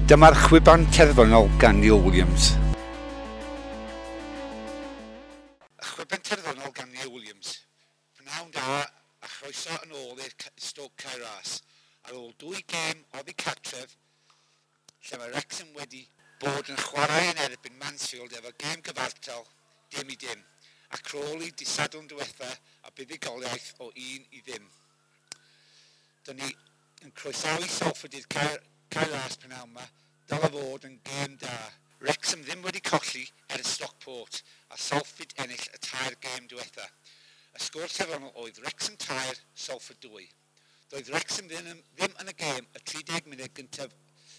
Dyma'r chwiban terfynol gan Neil Williams. Y chwiban terfynol gan Neil Williams. Pnawn da a chroeso yn ôl i'r Stoke Cae Ras. Ar ôl dwy gêm oddi cartref, lle mae Wrexham wedi bod yn chwarae yn erbyn Mansfield efo gêm gyfartal 0-0, a Crawley dydd Sadwrn diwetha a buddugoliaeth o 1-0. Dyna ni yn croesawu Salford i'r Cae Ras pnawn yma, dylai fod yn gêm da. Wrexham ddim wedi colli ers Stockport a Salford ennill y tair gêm diwetha. Y sgôr terfynol oedd Wrexham 3, Salford 2. Doedd Wrexham ddim yn y gêm y 30 munud gyntaf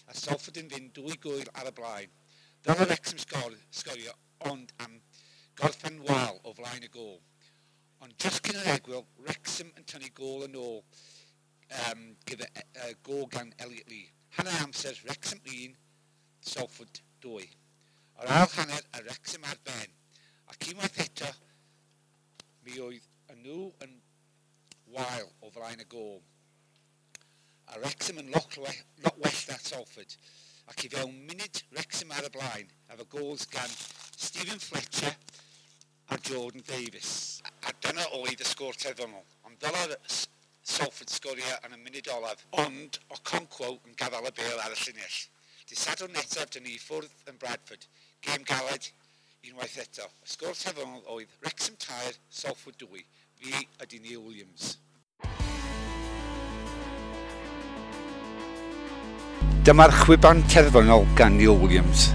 a Salford yn fynd dwy gôl ar y blaen. Dylai Wrexham sgorio ond am gorffen wael o flaen y gôl. Ond just cyn yr egwyl, Wrexham yn tynnu gôl yn ôl gyda gôl gan Elliot Lee. Hanner amser, Wrexham 1, Salford 2. Yr ail hanner, a Wrexham ar ben. Ac unwaith eto, mi oedd y nhw yn wael o flaen y gôl. A Wrexham yn lot well na Salford. Ac i fewn munud, Wrexham ar y blaen, efo goals gan Stephen Fletcher a Jordan Davis. A dyna oedd y sgôr terfynol. Ond dylai Salford sgorio yn y munud olaf, ond Okonkwo yn gadael y bêl ar y llinell. Dydd Sadwrn nesaf, dyn ni i ffwrdd yn Bradford. Gêm galed unwaith eto. Y sgôr terfynol oedd Wrexham 3, Salford 2. Fi ydy Neil Williams. Dyma'r chwiban terfynol gan Neil Williams.